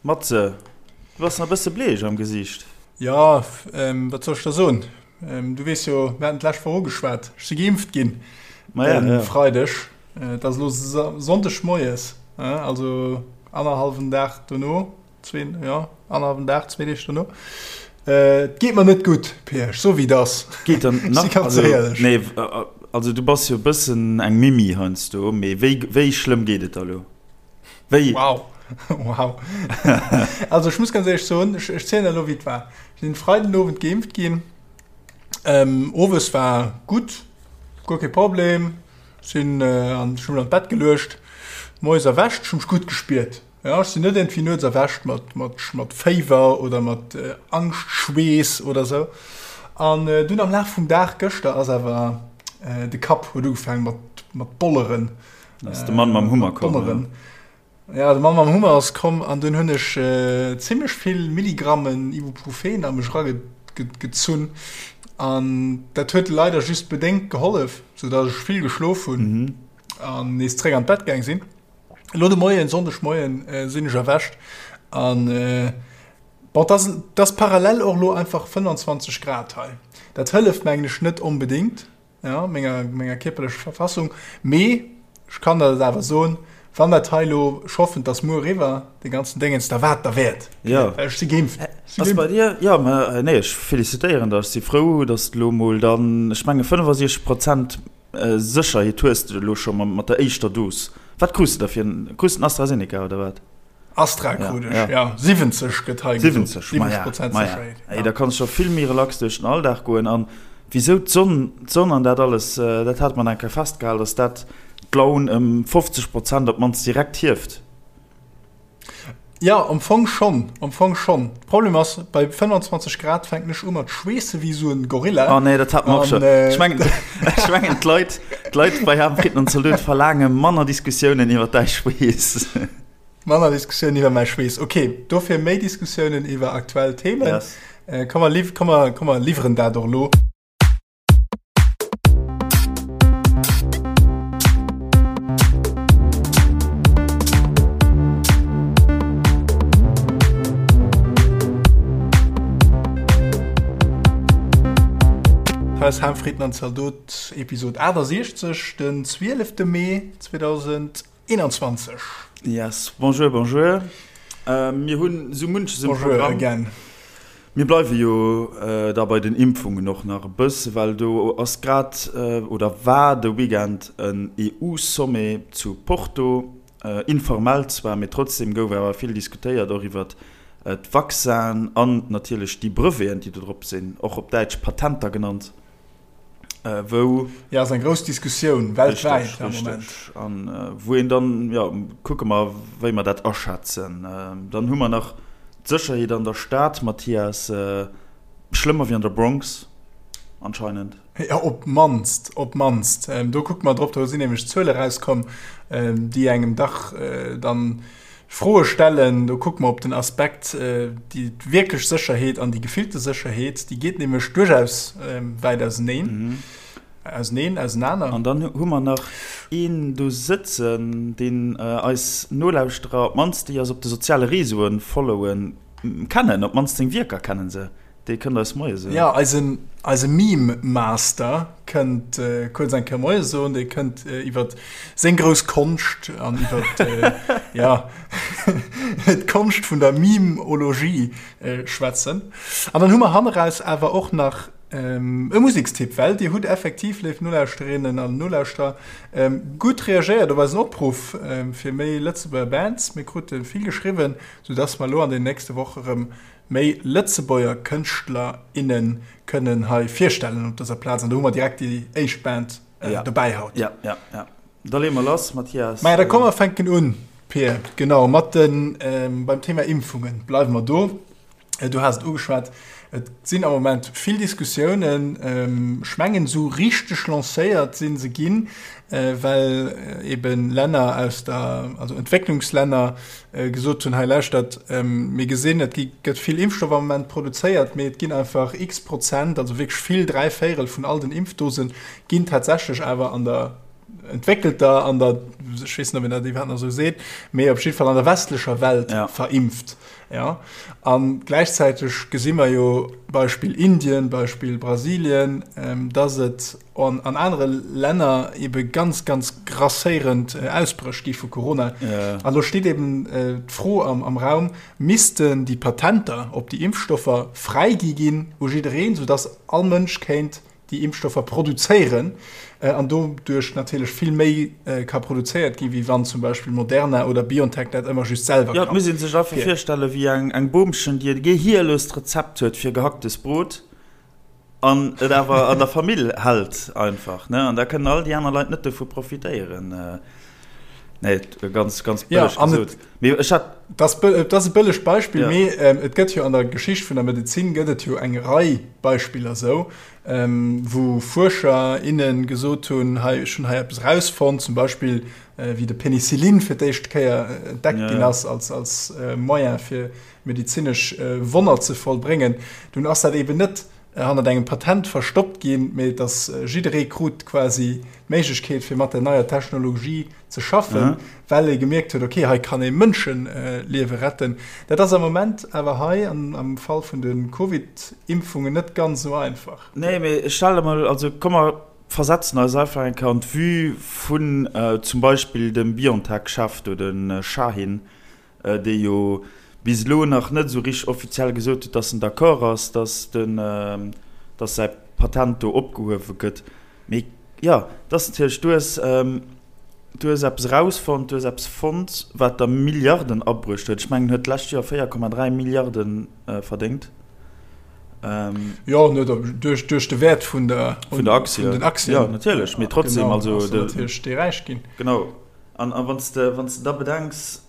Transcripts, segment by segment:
Matze, du bass nach e bësse bleech am Gesiicht. Jo, wat soll ech der soen? Du weess jo, mir haten d'lescht Woch ugeschwat, ech si geimpft ginn e Freideg. Et ass elo Sonndeg moies, also annerhallwen Dag dono, zwee, jo, annerhallwen Dag, zwee Deeg dono. Et geet mer net gutt, Pir, ech soe wéi et ass. Geet der nach, Si ganz also, éierlech. nee, also du bass jo e bëssen eng Mimi heiansdo, mee wéi, wéi schlëmm geet et der elo? Wéi? Wow. Wow. also ech muss ganz ehrlich soen, ech, ech zielen elo wéi et war. Ech sinn Freiden Owend geimpft ginn. Ähm, owes war gutt, guer kee Problem. Sinn äh, an ech hunn mech an d'Bett geluecht. Moies erwächt, ech hu mech gutt gespiert. Ja, ech sinn net irgendwie nuets erwächt mat, mat, mat Féiwer oder mat äh, Angschtschweess oder sou. An äh, dunn am Laf vum Dag gëschter ass awer äh, de Kapp huet ugefaangen mat, mat bolleren. Ass de Mann mam Hummer komm? Donneren. Ja, de Mann mam Hummer ass komm an dunn hunn ech äh, zimmlech vill Milligrammen Ibuprofen a mech eragezunn. An dat huet leider just bedéngt gehollef, soudatt ech vill geschlof hunn mhm. an nees zréck an d'Bett gaang sinn. Elo de Moien, Sonndegmoien, äh, sinn ech erwächt an äh, bon, das, das parallel och lo einfach 25 Grad hei. Dat hëlleft mengen ech net onbedéngt. ja, menger, menger kierperlecher Verfassung. Mee ech kann der dat awer soen, wann dat hei elo, ech hoffen, et ass muer eriwwer, dee ganzen Déngens, da war et derwäert. Ja. Well ech si geimpft. Ech si Ass bei dir? Ja, mä nee, ech felicitéieren der. Ech si frou, dass de elo mol dann, ech menge 65 Prozent Sécherheet hues de elo scho mat der éischter Dos. Wat krus de da fir en, krus de en AstraZeneca oder wat? Astra krut ech, ja. 70 gëtt hei gesot. 70, maja, maja. Ey, da kanns scho vill méi relax duerch den Alldag goen. An wisou d'Sonn, d'Sonn an dat alles, dat hate mer eng Kéier festgehal, dass dat d'Laun ëm 50 Prozent op d'mannst direkt hieft. Jo, am Fong schonn, am Fong schonn. Problem ass, bei 25 Grad fänken ech u mat schweesse wéi esou en Gorilla. Oh nee, dat hate mer och schonn. Ech mengen, ech mengen d'Leit, d'Leit bei Ham Fritten an Zalot verlaange manner Diskussiounen iwwer däi Schweess. Manner Diskussiounen iwwer mäi Schweess. Ok, dofir méi Diskussiounen iwwer aktuell Themen. Yes. Komm mer liw, komm mer, komm mer liwweren dat och elo. Hei ass Ham Fritten an Zaldot, Episod 68, den 12. Mee 2021. Yes, bonjour, bonjour. Mir hunn esou munches um Programm. Bonjour again. Mir bleiwe jo da bei den Impfungen och nach e bësse, well do ass grad oder war de Weekend en EU-Sommet zu Porto. Informell zwar, mee trotzdem gouf awer vill diskutéiert, och iwwert d'Vaccinen an natierlech déi Breveten, déi do drop sinn, och op Däitsch Patenter genannt. Wou. Jo, ass eng grouss Diskussioun weltwäit am Moment. Richteg, an wou een dann, jo, kucke mer, wéi mer dat aschätzen. Dann hu mer nach d'Sécherheet an der Stad, Mathias, schlëmmer wéi an der Bronx anscheinend. Jo, op d'mannst, op d'mannst. Do kucke mer drop, do sinn nämlech Zuele erauskomm, déi engem dach dann Froe stellen. Do kucke mer op den Aspekt, déi wierklech Sécherheet an déi gefillte Sécherheet, déi geet nämlech duerchaus wäit auseneen, auseneen, ausenaner. An dann hu mer nach een do sëtzen, deen eis Nolauschterer, op d'mannst déi eis op de soziale Réseaue followen, kennen, op d'mannst seng Wierker kennen se. Dee kënnt eis Moie soen. Jo, eisen, eise Meme Master kënnt kuerz eng Kéier Moie soen. Dee kënnt iwwer seng grouss Konscht an iwwer, jo, d'Konscht vun der Meme-Ologie schwätzen. An dann hu mer hanneraus awer och nach e Musekstipp, well Dir hutt effektiv, léif Nolauschterinnen an Nolauschterer, gutt reagéiert op eisen Opruff fir méi Lëtzebuerger Bands. Mir krute vill geschriwwen, soudass mer elo an den nächste Woche rëm méi Lëtzebuerger Kënschtler, innen kënnen hei virstellen op dëser Plaz. An do hu mer direkt déi éischt Band dobäi haut. Ja, ja, ja. Da leeë mer lass, Mathias. Maja, da komm mer fänken un, Pir. Genau, mat den, beim Thema Impfungen bleiwe mer do. Du has et ugeschwat, et sinn am Moment vill Diskussiounen. Ech mengen, esou richteg lancéiert si se ginn, well eben Länner aus der, also Entwécklungslänner, gesot hunn, hei lauschtert, mir gesinn, et gëtt vill Impfstoff am Moment produzéiert, mee et ginn einfach x Prozent, also wierklech vill, dräivéierel vun all den Impfdose ginn tatsächlech awer an der entwéckelter, an der, ech weess net, ob een dat iwwerhaapt nach esou seet, mee op jidde Fall an der westlecher Welt verimpft. Jo, a gläichzäiteg gesi mer jo, Beispill Indien, Beispill Brasilien, dass et an anere Länner ebe ganz, ganz grasséierend Ausbréch gi vu Corona. An do steet eben d'Fro am Raum, Missten déi Patenter op déi Impfstoffer fräigi ginn u jiddereen, soudass all Mënsch kéint déi Impfstoffer produzéieren an doduerch natierlech vill méi ka produzéiert ginn, wéi wann zum Beispill Moderna oder BioNTech dat ëmmer just selwer kann. Jo, et muss ee sech einfach virstellen, wéi eng Boomchen, déi e gehierlost Rezept huet fir gehacktes Brot an et awer an der Famill hält einfach, ne, an da kënnen all déi aner Leit net dovu profitéieren. Nee, ganz, ganz bëlleg ja, gesot. Mee ech hat. Das, dat ass e bëllegt Beispill, ja. mee ähm, et gëtt jo an der Geschicht vun der Medezin gëtt et jo eng Rei Beispiller sou, ähm, wou Fuerscher, innen gesot hunn, hei, ech hunn hei eppes rausfonnt, zum Beispill äh, wéi de Penicillin fir d'éischt Kéier äh, entdeckt ja. ginn ass als, als äh, Moyen fir medezinesch äh, Wonner ze vollbréngen. Dunn ass dat eben net hannert engem Patent verstoppt ginn, mee dass jidderee krut quasi d'Méiglechkeet fir mat der neier Technologie ze schaffen, well ee gemierkt huet, okay, hei kann ee Mënscheliewe retten. Dat ass am Moment awer hei am Fall vun de Covid-Impfungen net ganz esou einfach. Nee, mee stell der mol, also komm mer versetzen eis einfach eng Kéier an d'Vue vun zum Beispill dem BioNTech-Chef do, de Şahin, dee jo bis elo nach net esou richteg offiziell gesot huet, dass en d'accord ass, dass den, dass säi Patent do opgehuewe gëtt. Mee jo, et ass natierlech, du hues, du hues eppes erausfonnt, du hues eppes fonnt, wat der Milliarden abruecht huet. Ech mengen, en huet d'lescht Joer 4,3 Milliarde verdéngt. Jo, net duerch, duerch de Wäert vun der, vun der Aktie. Vun den Aktien. Jo, natierlech, mee trotzdem, genau, also. Ass natierlech dee räich ginn. Genau. An wann s de, wann s de da bedenks,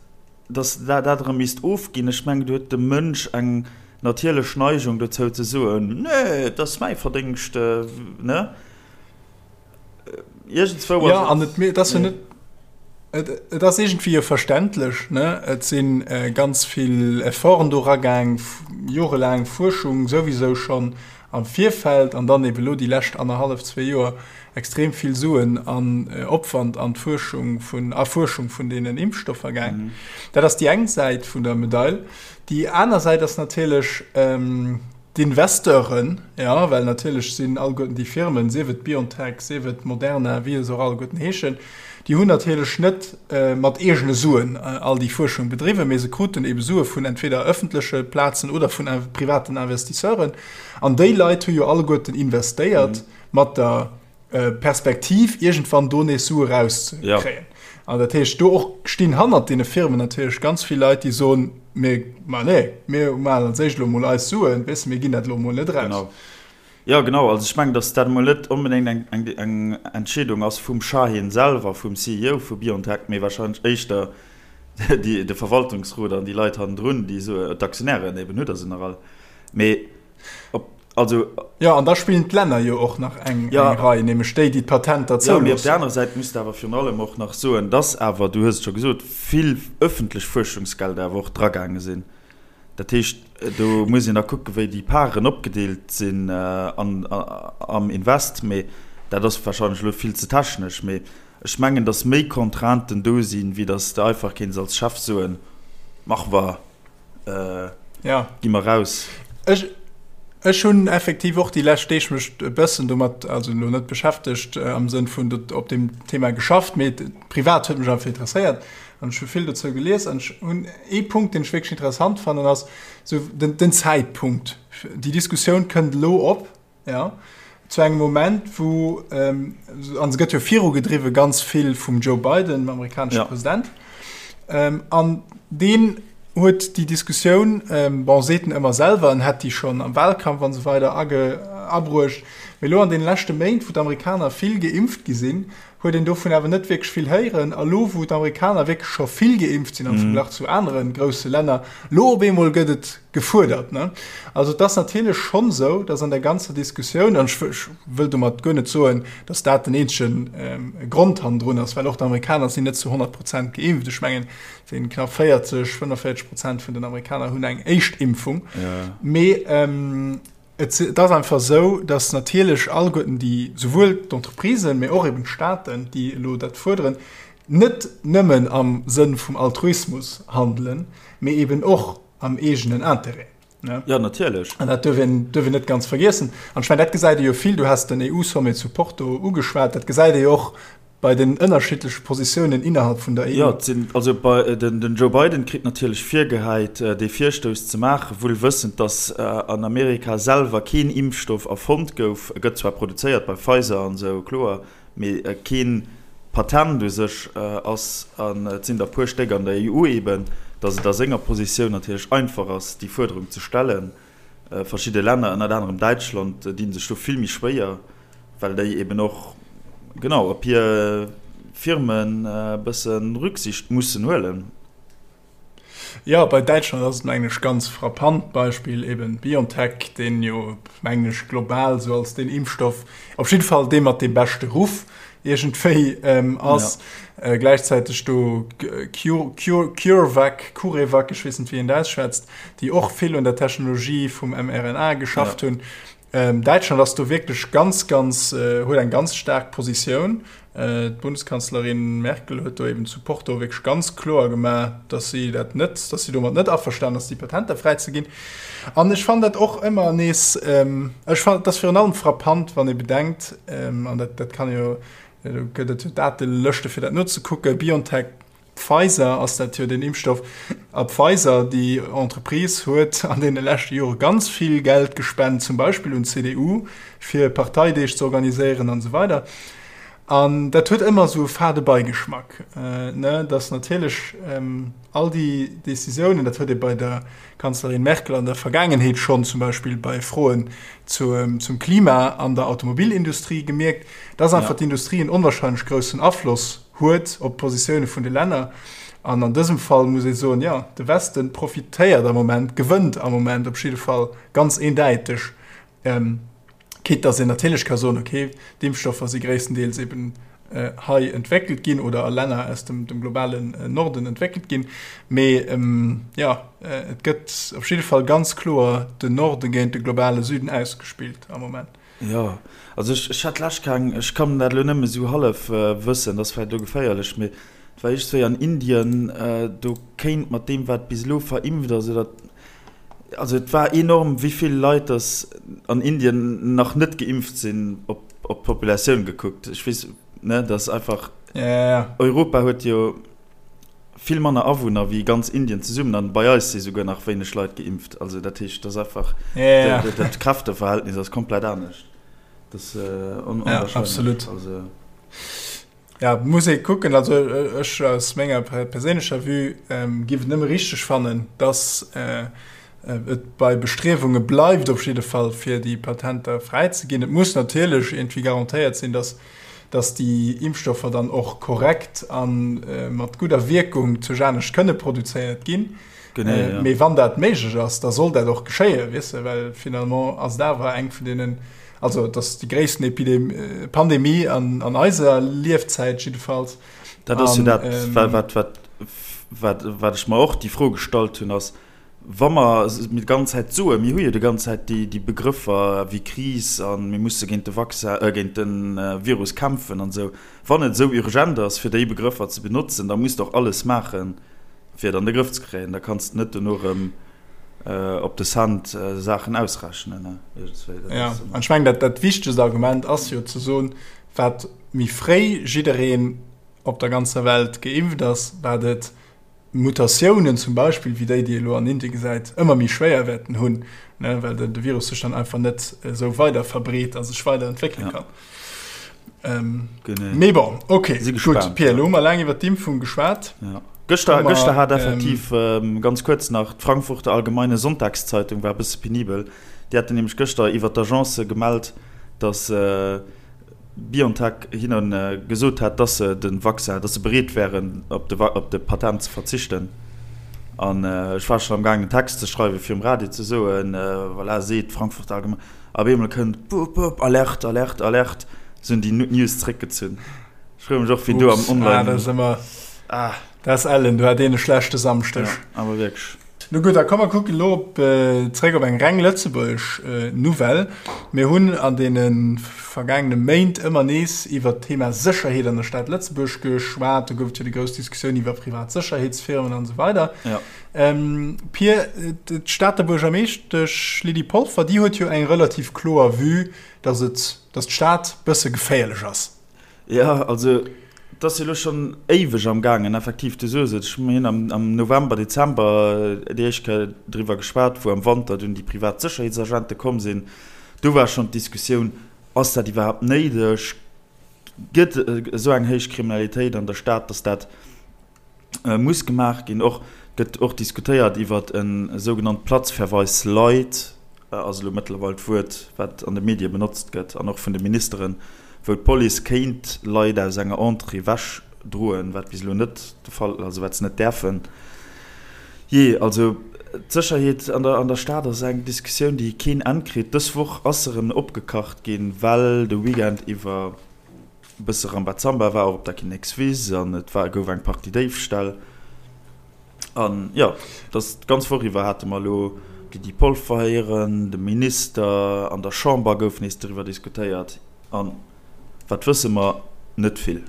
dass dat dat erëm misst ofginn, ech mengen, do huet de Mënsch eng natierlech Neigung dozou ze soen, Nee, et ass mäi Verdéngscht, ne? Iergendswou ass et. Jo, an et, et ass jo net, et, et ass iergendwéi jo verständlech, ne? Et si ganz vill Efforten do eragaang, jorelaang Fuerschung souwisou schonn am Virfeld an dann eben elo déi lescht annerhallef, zwee Joer extrem vill Suen an Opwand an d'Fuerschung vun Erfuerschung vun deenen Impfstoffer gaang. Dat ass déi eng Säit vun der Medail. Déi aner Säit ass natierlech d'Investeuren, jo, well natierlech sinn alleguerten déi Firmen, sief et BioNTech, sief et Moderna, wéi se och alleguerten heeschen, déi hunn natierlech net mat eegene Suen all déi Fuerschung bedriwwen, mee se kruten ebe Sue vun entweder ëffentleche Plazen oder vun privaten Investisseuren. An déi Leit hu jo alleguerten investéiert mat der Perspektiv, iergendwann do nees Sue rauszekréien. An dat heescht, do och stinn hannert deene Firmen natierlech ganz vill Leit, déi soen, Mir, ma nee, mir maachen als éischt elo emol eis Suen, weess de, mir ginn dat elo emol net eraus. Genau. Jo, genau. Also ech mengen, datt dat emol net onbedéngt eng, eng, eng Entscheedung ass vum Şahin selwer, vum CEO vu BioNTech, mee wahrscheinlech éischter déi, de Verwaltungsrot an déi Leit hannendrun, déi soen, d'Aktionären eben, hutt Der se nach all? Mee op, also. Jo, an da spillen d'Länner jo och nach eng, eng Rei, nämlech déi, déi d'Patenter zouloossen. Jo, mee op där anerer Säit muss de awer virun allem och nach soen, dass awer, du hues et scho gesot, vill ëffentlech Fuerschungsgelder awer och dragaange sinn. Dat heescht, do muss een da kucken, wéi déi Paren opgedeelt sinn an, am Invest. Mee dat ass warscheinlech elo vill ze technesch. Mee ech mengen, dass méi Contrainten do sinn, wéi dass de einfach kéints als Chef soen, Mach mer. Ja. Gi mer raus. Ech, ech hunn effektiv och déi lescht Deeg mech e bëssen domat, also elo net beschäftegt am Sënn vun op deem Thema geschafft, mee privat huet mech einfach interesséiert an ech hu vill dozou gelies an ech hunn ee Punkt, deen ech wierklech interessant fannen, ass sou den, den Zäitpunkt. Déi Diskussioun kënnt elo op. Jo, zu engem Moment, wou, an se gëtt jo virugedriwwe ganz vill vum Joe Biden, dem amerikanesche ja. President, an deen huet déi Diskussioun, bon, seet en ëmmer selwer, en hätt déi schonn am Wahlkampf an esou weider age, abruecht, mee elo an deene leschte Méint, wou d'Amerikaner vill geimpft gi sinn, huet een dovun awer net wierklech vill héieren. A lo, wou d'Amerikaner wierklech scho vill geimpft sinn am Verglach zu anere grousse Länner, lo op eemol gëtt et gefuerdert. Also et ass natierlech schonn esou, datt an der ganzer Diskussioun, an ech wëll domat guer net soen, datt dat den eenzege Grond hannendrun ass, well och d'Amerikaner sinn net zu 100 Prozent geimpft. Ech mengen, et sinn knapp 40, 45 Prozent vun den Amerikaner hunn eng éischt Impfung. Mee Et ass einfach esou, datt natierlech alleguerten déi, souwuel d'Entreprisen, mee och eben d'Staaten, déi elo dat fuerderen, net nëmmen am Sënn vum Altruismus handelen, mee eben och. am eegenen Interêt. Ne? Ja, natierlech. An dat duerf een, duerf een net ganz vergiessen. An ech mengen, dat gesäit ee jo vill, du has den EU-Sommet zu Porto ugeschwat, dat gesäit ee jo och bei den ënnerschiddleche Positiounen innerhalb vun der EU. Jo, et sinn, also bei, den, den Joe Biden kritt natierlech virgehäit, dee Virstouss ze maachen, wuel wëssend, datt an Amerika selwer keen Impfstoff erfonnt gouf. E gëtt zwar produzéiert bei Pfizer an esou, kloer, mee keen Patent u sech ass, an et sinn der e puer Stéck an der EU eben, datt et a senger Positioun natierlech einfach ass, déi Fuerderung ze stellen. Verschidde Länner, ënnert anerem Däitschland, di sech do vill méi schwéier, well déi eben och, genau, op hir Firmen e bësse Rücksicht mussen huelen. Jo, bei Däitschland ass et mengen ech ganz frappant, Beispill eben BioNTech, deen jo mengen ech global esou als deen Impfstoff, op jidde Fall dee mat deem beschte Ruff iergendwéi ass. Ja. Gläichzäiteg do CureVac, CureVac, ech weess net wéi een dat ausschwätzt, déi och vill un der Technologie vum mRNA geschafft hunn. Däitschland ass do wierklech ganz, ganz, huet eng ganz staark Positioun. D'Bundeskanzlerin Merkel huet do eben zu Porto wierklech ganz kloer gemaach, datt si dat net, datt si domat net averstanen ass, déi Patenter fräizeginn. An ech fannen dat och ëmmer nees, ech fannen, et ass virun allem frappant, wann ee bedenkt, an dat, dat kann ee jo, do gëtt et jo Datelëschte fir dat nozekucken, BioNTech, Pfizer ass dat jo deen Impfstoff. A Pfizer, déi Entreprise, huet an deene leschte Jore ganz vill Geld gespent, zum Beispill un d'CDU, fir Parteideeg ze organiséieren an esou weider. An dat huet ëmmer esou e fade Beigeschmack, ne, datt natierlech all déi Decisiounen, dat huet ee bei der Kanzlerin Merkel an der Vergaangenheet schonn zum Beispill bei Froen zum Klima an der Automobilindustrie gemierkt, datt einfach d'Industrie en onwahrscheinlech groussen Afloss huet op d'Positioune vun de Länner. An an dësem Fall muss ee soen, jo, de Westen profitéiert am Moment, gewënnt am Moment op jidde Fall ganz eendäiteg, quitte dass een natierlech ka soen, okay, d'Impfstoffer si gréisstendeels eben hei entwéckelt ginn oder a Länner aus dem globalen Norden entwéckelt ginn. Mee jo, et gëtt op jidde Fall ganz kloer den Norde géint de globale Süden ausgespillt am Moment. Jo, also ech, ech hat d'lescht keng, ech kann dat elo nëmme sou hallef wëssen, dat ass vläicht elo geféierlech, mee et war iergendswéi an Indien, do kéint mat deem wat bis elo verimpft ass oder, also et war enorm wéi vill Leit dass an Indien nach net geimpft sinn op op d'Populatioun gekuckt. Ech weess, ne, dass einfach, Europa huet jo. Vill manner Awunner wéi ganz Indien zesummen an bei eis si souguer nach wéineg Leit geimpft. Also dat heescht, dat ass einfach, dat Kräfteverhältnis ass komplett anescht. Dat ass onwahrscheinlech. Ja, absolut. Also. Ja, muss ee kucken. Also ech aus menger perséinlecher Vue giff et nëmme richteg fannen, dass et bei Bestriewunge bleift op jidde Fall, fir déi Patenter fräizeginn. Et muss natierlech iergendwéi garantéiert sinn, dass dass déi Impfstoffer dann och korrekt a mat gudder Wierkung zu Janescht kënne produzéiert ginn. Genee, ja. Mee wann dat méiglech ass, da soll dat och geschéien, weess de, well finalement ass et awer eng vun deenen, also et ass déi gréissten Epidem Pandemie an, an eiser Liefzäit jiddefalls. Dat ass jo dat, wat, wat, wat, wat ech mer och déi Fro gestallt hunn, ass, Wa mer mir déi ganz Zäit soen, mir hu jo déi ganz Zäit déi Begrëffer wéi Kris a mir musse géint de Vaccin, géint de Virus kämpfen an esou, wann et esou urgent ass fir déi Begrëffer ze benotzen, da muss de och alles maachen, fir et an de Grëff ze kréien. Da kanns de net dono erëm op de Cent Saachen ausrechnen. Jo, an ech mengen, dat wichtegst Argument ass jo ze soen, wat méi fréi jiddereen op der ganzer Welt geimpft ass, wat et Mutatiounen zum Beispill, wéi déi, déi ee elo an Indie gesäit, ëmmer méi schwéier wäerten hunn, ne, well de Virus sech dann einfach net esou weider verbreet a sech weider entwéckele kann. Ähm, Mee bon, okay, Si gespaant, gutt, Pierre, elo hu mer laang iwwer d'Impfung geschwat. Ja. Gëschter, gëschter hat effektiv, ähm, ganz kuerz nach, d'Frankfurter Allgemeine Sonntagszeitung war e bësse penibel. Déi haten nämlech gëschter iwwer d'Agence gemellt, datt, äh, BioNTech hinne gesot hat, dass se de Vaccin, dass se bereet wären, op de op de Patent ze verzichten. An ech war schonn am gaangen en Text ze schreiwen, fir um Radio ze soen, voilà, seet d'Frankfurter Allgemeine. A op eemol kënnt, Bup, bup, Alerte, Alerte, Alerte, se hunn déi News zréckgezunn. Ech froe mech och, wien do am Online. Ah, dat ass ëmmer, ah, dat ass ellen, do hat een e schlechte Samschdeg. Ja, awer wierklech. No gutt, da komm mer kucken elo op, zréck op eng reng lëtzebuergesch Nouvelle. Mir hunn an deene vergaangene Méint ëmmer nees iwwert d'Thema Sécherheet an der Stad Lëtzebuerg geschwat. Do gouf et jo déi grouss Diskussioun iwwer privat Sécherheetsfirmen an esou weider. Ja. Pir, d'Stater Buergermeeschtesch Lydie Polfer, déi huet jo eng relativ kloer Vue, datt et, datt d'Stad bësse geféierlech ass. Jo, also et ass jo elo schonn éiweg am gaangen, effektiv, du soos et, ech mir hunn am am November, Dezember déi éischt Kéier driwwer geschwat, wou am Wanter dunn déi privat Sécherheetsagente komm sinn. Do war schonn d'Diskussioun, Ass dat iwwerhaapt néideg? Gëtt esou eng héich Kriminalitéit an der Stad, datt dat muss gemaach ginn. Och gëtt och diskutéiert iwwert e sougenannt Platzverweis light, ass elo mëttlerweil d'Wuert, wat an de Medie benotzt gëtt an och vun de Ministeren, wou d'Police kéint Leit aus enger Entrée ewech droen, wat bis elo net de Fall, also wat se net däerfen. Jee, also d'Sécherheet an der an der Stad ass eng Diskussioun, déi keen Enn kritt. Dës Woch ass se erëm opgekacht ginn, well de Weekend iwwer, E bësse Rambazamba war och op der Kinnekswiss an et war gouf eng Partie Déifställ. An jo, dass d'ganz Woch iwwer hate mer elo d'Lydie Polfer héieren, de Minister, an der Chamber gouf nees driwwer diskutéiert. An wat wësse mer? Net vill.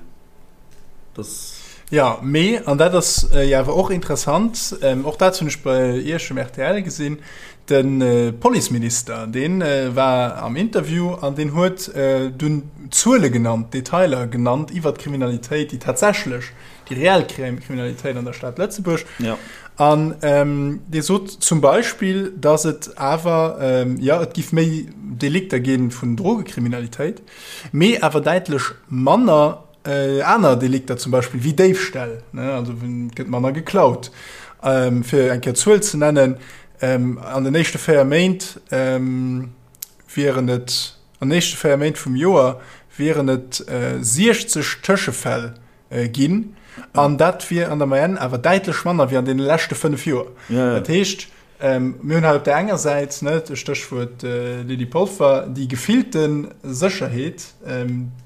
Dass. Jo, mee, an dat ass jo awer och interessant, och dat hunn ech bei Iech um rtl gesinn, De Policeminister, dee war am Interview an deen huet dunn Zuele genannt, Detailer genannt iwwert d'Kriminalitéit, déi tatsächlech, déi reell Kriminalitéit an der Stad Lëtzebuerg. An dee sot zum Beispill, datt et awer, jo, et giff méi Delikter gi vun Drogekriminalitéit, mee awer däitlech manner Aner Delikter zum Beispill wéi Déifställ, also et gëtt manner geklaut. Fir eng Kéier Zuel ze nennen, an den éischte 4 Méint wieren et, an den éischte 4 Méint vum Joer wieren et 60 Tëschefäll ginn an dat wier an der Moyenne awer däitlech manner wéi an deene leschte 5 Joer. Dat heescht, Mir hunn hei op där enger Säit, ne, Stéchwuert Lydie Polfer, déi gefillte Sécherheet,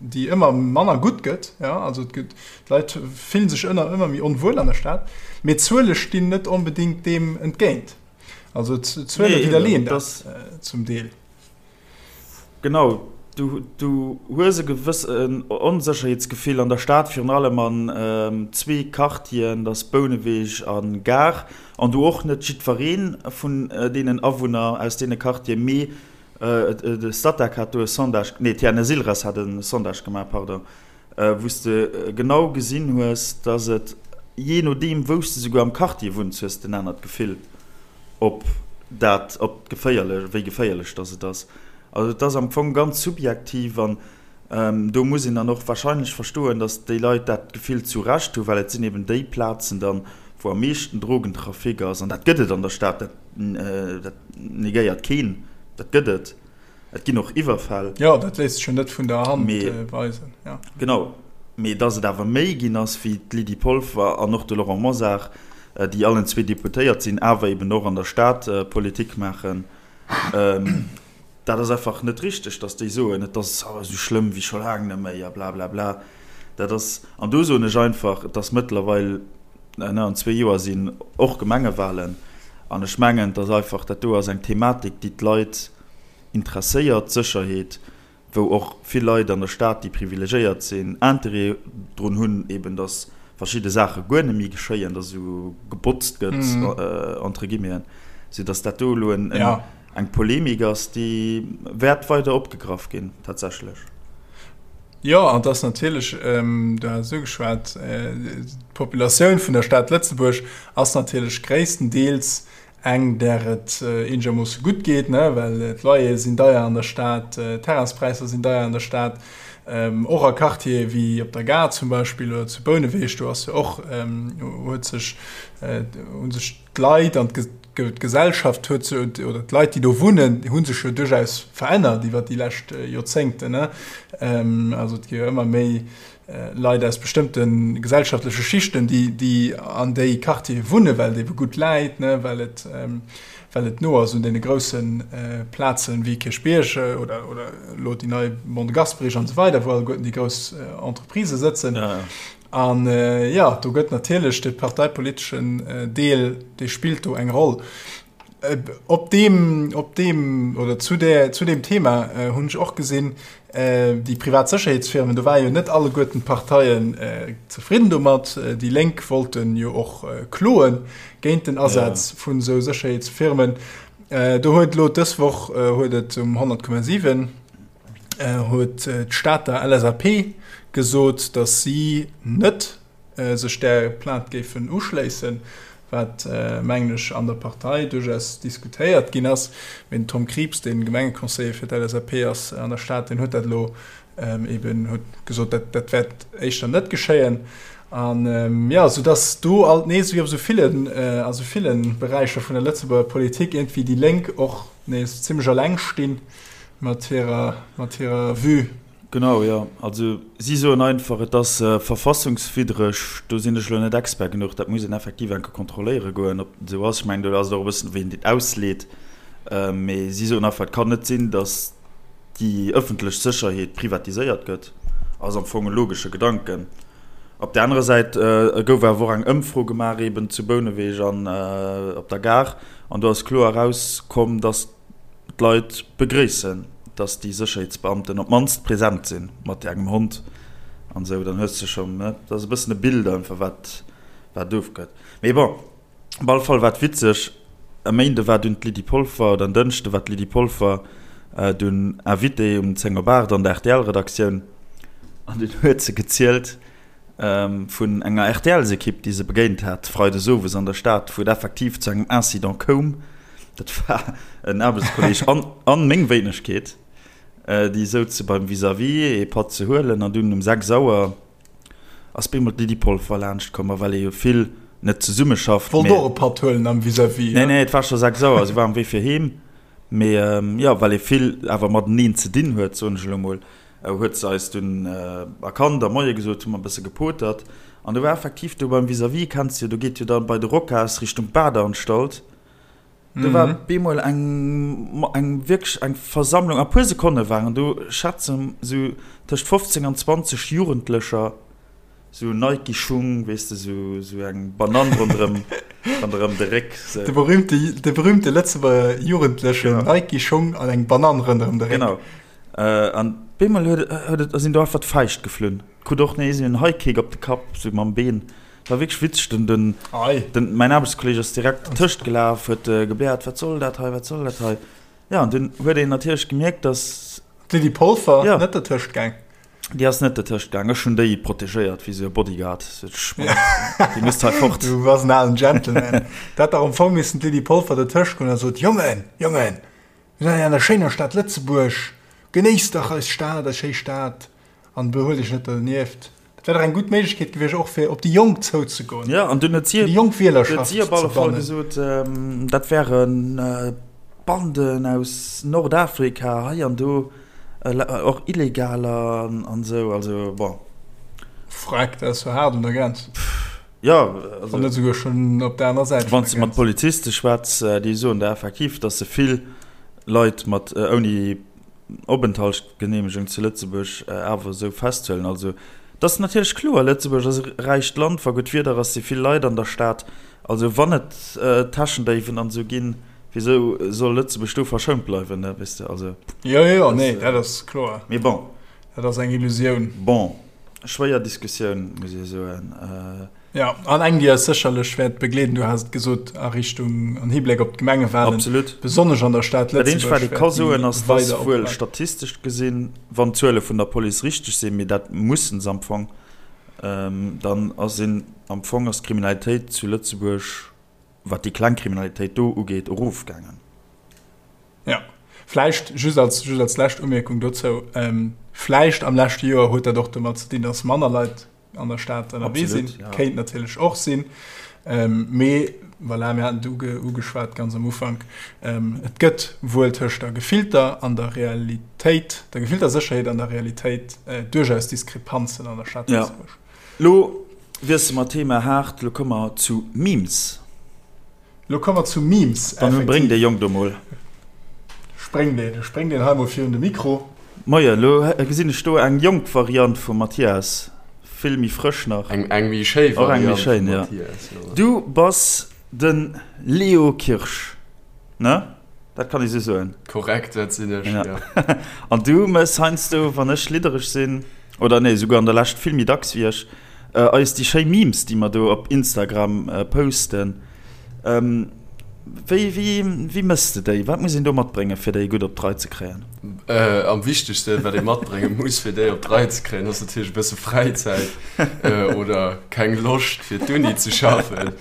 déi ëmmer manner gutt gëtt, jo, also et gëtt, d'Leit fille sech ënner ëmmer méi onwuel an der Stad, mee d'Zuele stinn net onbedéngt deem entgéint. Also d'Zuele widderleeën dat zum Deel. Genau, du, du hues e gewëssen Onsécherheetsgefill an der Stad, virun allem an zwee Quartieren, dat ass Bouneweg a Gare, an do och net jiddweree vun deenen Awunner aus deene Quartieren, mee de Statec hat do e Sondage, nee, d'TNS-Ilres hat e Sondage gemaach, pardon, wou s de genau gesinn hues, dass et, jee nodeem wou s de souguer am Quartier wunns, hues de en anert Gefill. Ob dat, ob geféierlech, wéi geféierlech dass et ass. Also et ass am Fong ganz subjektiv an do muss een dann och wahrscheinlech verstoen, dass déi Leit dat Gefill zu Recht hu, well et sinn eben déi Plazen dann, wou am meeschten Drogentrafic ass. An dat gëtt et an der Stad, dat, dat negéiert keen, dat gëtt et. Et ginn och Iwwerfäll. Jo, dat léisst sech jo net vun der Hand weisen. Genau. Mee datt et awer méi ginn ass, wéi d'Lydie Polfer an och de Laurent Mosar, déi allen zwee Deputéiert sinn, awer eben och an der Stad Politik maachen, dat ass einfach net richteg, datt déi soen, et ass esou schlëmm wéi scho laang net méi a blablabla. Dat ass, an do soen ech einfach, et ass mëttlerweil, an zwee Joer sinn och Gemengewahlen, an ech mengen, et ass einfach, dat do ass eng Thematik, déi d'Leit, interesséiert, d'Sécherheet, wou och vill Leit an der Stad, déi privilegéiert sinn, Interêt drun hunn, eben datt verschidde Saache guer net méi geschéien, datt esou gebotzt gëtt, entre guillemeten, soudatt dat do elo eng Polemik ass, déi wäert weider opgegraff ginn, tatsächlech. Jo, an et ass natierlech, du has et ugeschwat, d'Populatioun vun der Stad Lëtzebuerg ass natierlech gréisstendeels eng där et eenegermoosse gutt geet, ne, well d'Loyere sinn deier an der Stad, d'Terrainspräisser sinn deier an der Stad, och a Quartiere wéi op der Gare zum Beispill oder zu Bouneweg, do ass jo och, huet sech, hu sech d'Leit an d'Gesellschaft huet sech, oder d'Leit déi do wunnen, hu sech jo duerchaus verännert iwwer déi lescht Joerzéngten, ne. Also et gi jo ëmmer méi. Leit aus bestëmmte gesellschaftleche Schichten, déi, déi an déi Quartiere wunnen, well et ebe gutt läit, ne, well et, well et no ass un deene grousse Plazen wéi Kierchbierg oder, oder elo déi nei Mont de Gasperich an esou weider, wou alleguerten déi grouss Entreprisë sëtzen. An, jo, do gëtt natierlech de parteipoliteschen Deel, dee spillt do eng Roll. Op deem, op deem oder zu där, zu deem Thema hunn ech och gesinn, déi privat Sécherheetsfirmen, do ware jo net alleguerten d'Parteien zefridden domat. Déi Lénk wollten jo och kloe géint den Asaz vun esou Sécherheetsfirmen. Do huet elo dës Woch huet et um 100,7 huet d'Stater LSAP gesot, datt si net sech där Plainte géifen uschléissen, wat, mengen ech, an der Partei duerchaus diskutéiert ginn ass. Mee den Tom Krieps, dee Gemengeconseiller fir d'LSAP ass an der Stad, deen huet dat elo eeben huet gesot, dat dat wäert éischter net geschéien. An, jo, soudass do alt nees, wéi op esou villen, a sou ville Beräicher vun der Lëtzebuerger Politik, iergendwéi déi Lénk och nees zimmlech eleng stinn mat hirer, mat hirer Vue. Genau, jo. Also si soen einfach, et ass verfassungswiddreg. Do sinn ech elo net Expert genuch. Dat muss een effektiv eng Kéier kontrolléiere goen, ob dat esou ass. Ech mengen, do ass et och e bëssen, wéi een dat ausleet. Mee si soen einfach, et kann net sinn, datt déi ëffentlech Sécherheet privatiséiert gëtt. Ass am Fong e logesche Gedanken. Op där anerer Säit gouf awer och eng Ëmfro gemaach eeben zu Bouneweg an op der Gare. An do ass kloer erauskomm, datt D'Leit begréissen, dass déi Sécherheetsbeamten op d'mannst present sinn, mat engem Hond an esou. Dann hues de schonn, ne, dat ass e bëssen e Bild einfach, wat, wat ofgëtt. Mee bon, op alle Fall war et witzeg, e Méinde war dunn d'Lydie Polfer, oder en Dënschde war d'Lydie Polfer dunn Invitée um 10 op 8 an der RTL-Redaktioun an dunn huet se gezielt vun enger RTLs-Ekipp, déi se begéint hat freides owes an der Stad, wou et effektiv zu engem Incident koum. Dat war en Aarbechtskolleeg an, an meng Wéinegkeet, déi souze beim Vis-à-vis ee Patt ze huelen an dunn um 6 Auer ass bemol d'Lydie Polfer laanscht komm. A well ee jo vill net zesummeschafft, Wollt och e Patt huelen am Vis-à-vis, Nee, nee, et war scho 6 Auer, si war um Wee fir heem. Mee jo, well ee vill awer mateneen ze dinn huet, soen ech elo mol, huet se eis dunn erkannt a Moie gesot, hu mer e bësse gepotert. An do war effektiv do beim Vis-à-vis, kenns jo, do geet jo da bei de Rocas Richtung Badeanstalt, do war bemol eng, eng wierklech eng Versammlung, a puer Sekonne waren do, schätzen esou tëscht 15 an 20 Jugendlecher, Sou Nike Schung, weess de, sou, sou eng Banann ronderëm, ronderëm de Réck, sou. De berühmte, de berühmte Lëtzebuerger Jugendlechen, genau. Nike Schung an eng Banann ronderëm de Réck. Genau. Äh, an bemol huet, huet et, sinn do einfach d'Fäischt geflunn. Krut och nees een High Kick op de Kapp, sou mam Been. War wierklech witzeg, den, den, Ei. den, mäin Aarbechtskolleg ass direkt dertëscht gelaf, huet gebläert, wat soll dat hei, wat soll dat hei? Ja, an dunn huet een natierlech gemierkt, dass. D'Lydie Polfer ja. net dertëscht gaang. Déi ass net dertëscht gaang. Ech hunn déi protegéiert wéi sou e Bodyguard. Déi misst hei fort. Du bass en alen Gentleman. Dat hätt dach am Fong missen d'Lydie Polfer dertëscht goen a sot, Jongen, Jongen, mir sinn hei an der schéiner Stad Lëtzebuerg, genéisst dach eis Stad, eis schéi Stad an behuelt iech net dernieft. Dat wär dach eng gutt Méiglechkeet gewiescht, och fir op déi Jonk zouzegoen, Ja, an dunn huet si, déi jonk Wielerschaft huet si op alle Fall gesot, dat wären Banden aus Nordafrika hei an do, och Illegaler an esou, also bon. Freck, dat ass jo haart un der Grenz. Jo, also. Wann net esouguer schonn op der anerer Säit vun der Grenz. Wann s de mat Poliziste schwätz, déi soen der effektiv, datt se vill Leit mat ouni Openthaltsgeneemegung zu Lëtzebuerg awer esou festhuelen. Also, et ass natierlech kloer, Lëtzebuerg ass e räicht Land, wa gutt Wieder ass, si vill Leit an der Stad. Also wann et Täschendéiwen an esou ginn, wisou soll Lëtzebuerg do verschount bleiwen, ne, weess de, also. Jo, jo, nee, dat ass kloer. Mee bon. Dat ass eng Illusioun. Bon, schwéier Diskussioun, muss ee soen. Jo, an eng, déi eis sécherlech wäert begleeden, du has et gesot, a Richtung, an Hibléck op d'Gemengewahlen, Absolut. besonnesch an der Stad Dat eenzegt, wat ee ka soen, ass, dass wuel statistesch gesinn, wann d'Zuele vun der Police richteg sinn, mee dat mussen se am Fong, dann ass een, am Fong ass d'Kriminalitéit zu Lëtzebuerg, wat déi kleng Kriminalitéit do ugeet, erofgaangen. Jo, vläicht just als, just als lescht Umierkung dozou, vläicht am leschte Joer huet dat och domat ze dinn, dass manner Leit. an der Stad ënnerwee sinn. Ja. Kéint natierlech och sinn. Ähm, mee voilà, mir haten et uge, ugeschwat ganz am Ufank, ähm, et gëtt wuel tëscht der gefillter an der Realitéit, der gefillter Sécherheet an der Realitéit äh, duerchaus Diskrepanzen an der Stad ja. Lëtzebuerg. Lo wiesse mer Thema haart, lo komme mer zu Memes. Lo komme mer zu Memes, Dann bréng dee Jong do mol. Spréng deen, spréng deen hei mol virun de Mikro. Moien, lo gesinn ech do eng jonk Variant vum Mathias, vill méi frësch nach. Eng, eng méi schéi Variant vum Mathias, jo. Du bass de Leo Kirsch, ne? Dat kann ee sou soen. Korrekt, dat sinn ech, jo. An du mëss heiansdo, wann ech liddereg sinn, oder nee, souguer an der Lescht vill méi dacks wéi ech, Eis déi schéi Memes, déi mer do op Instagram posten, wéi, wéi, wéi mëss de déi? Wat muss een do matbréngen, fir déi gutt op d'Rei ze kréien? Am wichtegsten, wat ee matbrénge muss, fir déi op d'Rei ze kréien, ass natierlech e bësse Fräizäit oder keng Loscht, fir d'Uni ze schaffen.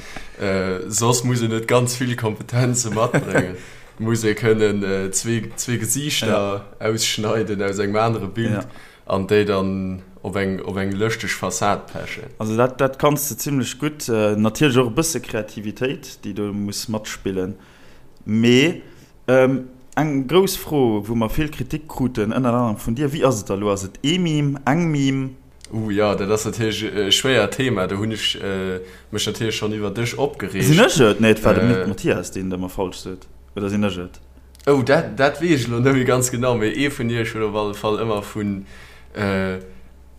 Soss muss een net ganz vill Kompetenze matbréngen. Et muss ee kënnen zwee Gesiichter ausschneiden aus engem anere Bild An déi dann op eng op eng lëschteg Fassad pechen. Also dat dat kanns de zimlech gutt. Natierlech och e bësse Kreativitéit, déi do muss matspillen. Mee eng grouss Fro, wou mer vill Kritik kruten, ënnert anerem vun dir, Wéi ass et da elo? Ass et ee Meme, eng Meme? Ooh jo, dat ass natierlech e schwéiert Thema. Do hunn ech mech natierlech schonn iwwer dech opgereegt. Sinn ech et? Nee, et war de Mathias, deen et ëmmer falsch sot. Oder sinn ech et? Oh, dat, dat weess ech elo net méi ganz genau, mee ee vun iech huet op alle Fall ëmmer vun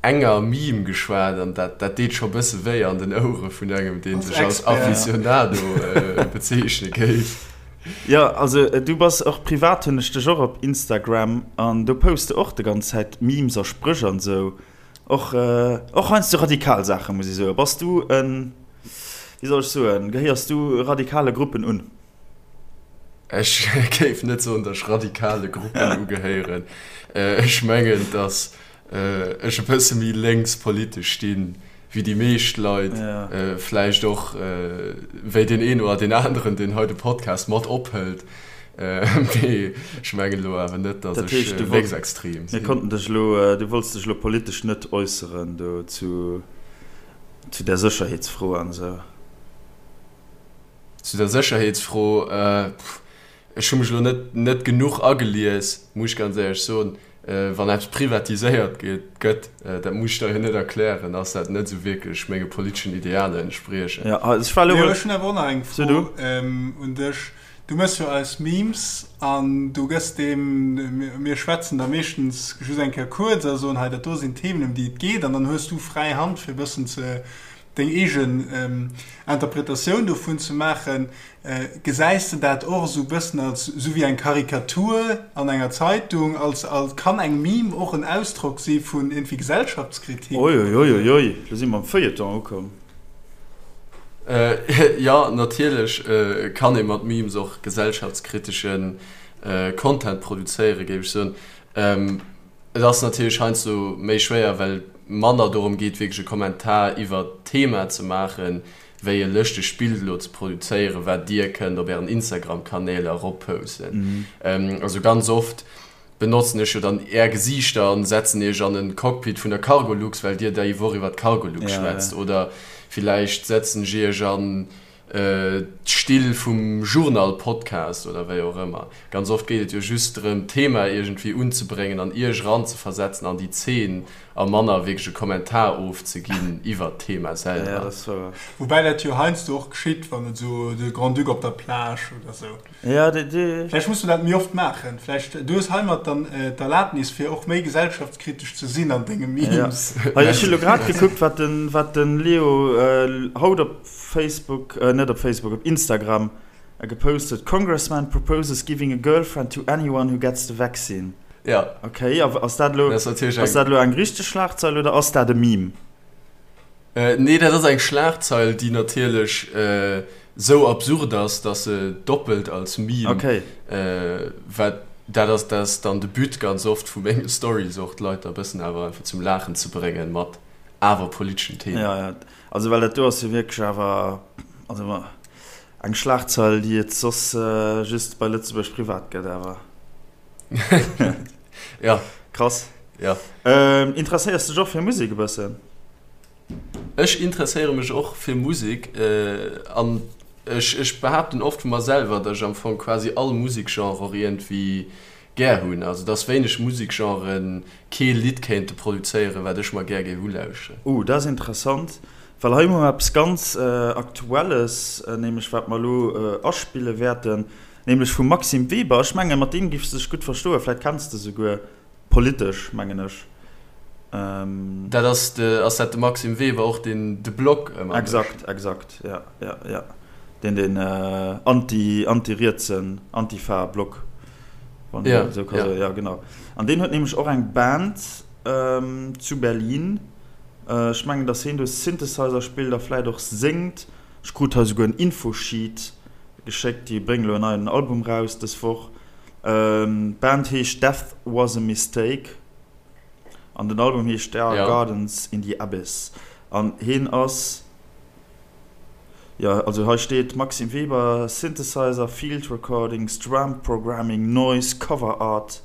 enger Meme geschwat an dat, dat deet scho bësse wéi an den Ouere vun engem, dee sech als Aficionado bezeechne géif. Jo, also du bass och privat, hunn ech dech och op Instagram an do poste och de ganz Zäit Memes a Spréch an esou. Och, och heiansdo radikal Saache muss ech soen. Bass du en, wéi soll ech soen, gehéiers du radikale Gruppen un? Ech géif net soen, datt ech radikale Gruppen ugehéieren. Ech mengen, datt ech e bësse méi lénks politesch stinn, wéi déi meescht Leit, vläicht och wéi deen een oder deen aneren, deen hei de Podcast mat ophëlt. Mee ech mengen elo awer net, datt ech lénksextrem sinn. Mir konnten dech elo, du wollts dech elo politesch net äusseren do zu där Sécherheetsfro an esou. Zu der Sécherheetsfro, ech hu mech elo net net genuch agelies, muss ech ganz éierlech soen. Wann eppes privatiséiert gëtt, dat muss ech der jo net erklären, ass dat net esou wierklech menge politeschen Idealer entspriechend. Jo, ech war elo. Ech hunn awer och nach eng Fro un dech. Du méchs jo eis Memes an du gëss deem, mir schwätzen da meeschtens just eng Kéier kuerz a soen, hei dat do sinn d'Themen ëm déi et geet an dann hues du fräi Hand fir e bëssen ze deng eegen Interpretatioun dovun ze maachen. Gesäis de dat och esou bëssen als esou wéi eng Karikatur an enger Zeitung, als als kann eng Meme och en Ausdrock si vun iergendwéi Gesellschaftskritik? Oi oi oi oi oi, lo si mer am Feuilleton ukomm. Jo, natierlech kann ee mat Memes och gesellschaftskritesche Content produzéieren, géif ech soen. Et ass natierlech heiansdo méi schwéier, well et manner dorëm geet, wierklech e Kommentar iwwert d'Thema ze maachen, wéi e lëschtegt Bild elo ze produzéieren, wat Dir kënnt op Ären Instagram-Kanäl eropposten. Also ganz oft benotzen ech jo dann Är Gesiichter an setzen Iech an e Cockpit vun der Cargolux, well Dir déi Woch iwwer d'Cargolux schwätzt. Oder villäicht setzen ech Iech an d'Still vum Journal-Podcast oder wéi och ëmmer. Ganz oft geet et jo just drëm, d'Thema iergendwéi unzebréngen an Iech eranzeversetzen an déi Zeen a manner wierklech e Kommentar ofzeginn iwwert d'Thema selwer. Woubäi dat jo heiansdo och geschitt, wann et esou de Grand-Duc op der Plage oder esou. Vläicht muss mer dat méi oft maachen. Vläicht, du hues heimat dann d'Erlaabnis, fir och méi gesellschaftskritesch ze sinn an denge Memes. Ech hu lo grad gekuckt, wat de Leo haut op Facebook, net op Facebook, op Instagram gepost huet, Congressman proposes giving a girlfriend to anyone who gets the vaccine. Ja. Ok, a ass dat elo, ass dat elo eng richteg Schlagzeil oder ass dat e Meme? Nee, dat ass eng Schlagzeil, déi natierlech esou absurd ass, datt se doppelt als Meme, okay. Wat dat ass, dat ass dann de But ganz oft vu menge Stories och, d'Leit da e bëssen awer einfach zum Laachen ze bréngen mat awer politeschen Themen. Ja, ja. Also well dat do ass jo wierklech awer also eng Schlagzeil, déi et soss just bei Lëtzebuerg Privat gëtt awer. Ja. Krass. Ja. Interesséiers dech och fir Musek e bëssen? Ech interesséiere mech och fir Musek an ech ech behaapten oft vu mer selwer, datt ech am Fong quasi all Musekgenre och iergendwéi gär hunn. Also et ass wéineg Musekgenren kee Lidd kéinte produzéieren, wat ech mer gär géif ulauschteren. Oh, dat ass interessant, well hei hu mer eppes ganz Aktuelles, nämlech wat mer elo aspille wäerten, nämlech vum Maxime Weber. Ech mengen, mat deem géifs de dech gutt verstoen, vläicht kenns de souguer. Politesch, mengen ech. Dat ass de, ass dat de Maxime Weber och, deen de Blog ëmmer mécht? Exakt, exakt, ja, ja, ja. Deen deen anti, anti-rietsen, Antifa-Blog, wann een dat esou ka soen. Ja, genau. An deen huet nämlech och eng Band zu Berlin. Ech mengen, datt hien do Synthesizer spillt a vläit och séngt. Ech krut hei souguer en Infosheet geschéckt. Déi bréngen elo en neien Album raus dës Woch. D'Band heescht Death Was A Mistake an den Album heescht There Are Gardens In The Abyss an heen ass, jo also hei steet Maxime Weber, Synthesizer, Field Recordings, Drum Programming, Noise, Cover Art.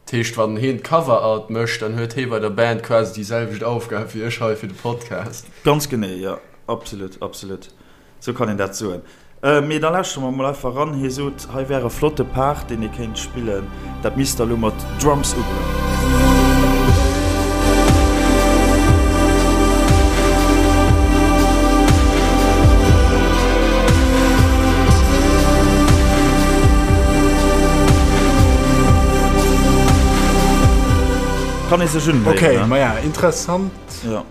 Dat heescht wann heen d'Cover Art mécht, dann huet hee bei der Band quasi déi selwecht Aufgab wéi ech hei fir de Podcast. Ganz genee, jo, absolut, absolut. Sou kann een dat soen. Mee da lauschtere mer mol einfach eran. Hie sot, hei wär e flotte Part, deen ee kéint spillen. Dat misst der elo mat Drums ugoen. Kann ee sech unhéieren, ne? Ok, maja, interessant. Jo.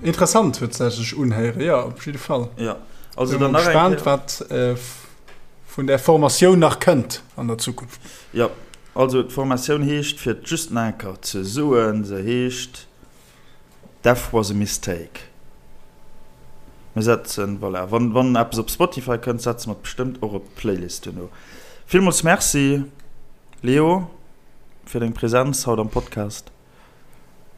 Interessant huet se sech unhéieren, jo op jidde Fall. Jo, also dann nach eng Kéier. Gespaant wat vun där Formatioun nach kënnt an der Zukunft. Jo, also d'Formatioun heescht, fir et just nach eng Kéier ze soen, se heescht Death was a mistake. Mir setzen, voilà, wann, wann eppes op Spotify kënnt, setze mer et bestëmmt och op d'Playlist duerno. Villmools Merci Leo fir deng Präsenz haut am Podcast,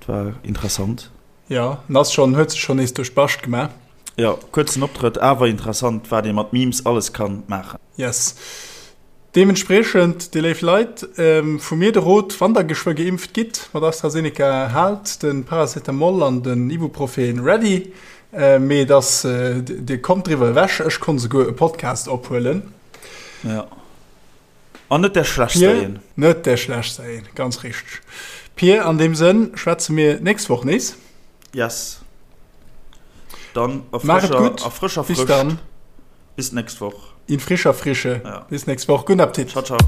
et war interessant. Jo, en ass schon, huet sech schon nees duerch d'Bascht gemaach. Jo, kuerzen Optrëtt, awer interessant wat ee mat Memes alles kann maachen. Yes. Deementspriechend, dir léif Leit, vu mir de Rot, wann der geschwë geimpft gitt mat AstraZeneca, haalt de Paracetamol an den Ibuprofen ready, mee et ass, dir kommt driwwer ewech. Ech konnt esouguer e Podcast ophuelen. Jo. An net där schlechtster een. Net där schlechtster een, ganz richteg. Pir, an deem Sënn schwätze mir nächst Woch nees. Yes. Dann a frëscher, a frëscher Frëscht. Bis dann. Bis nächst Woch. In frischer Frische. Ja. Bis nächst Woch. Guten Appetit. Ciao, ciao.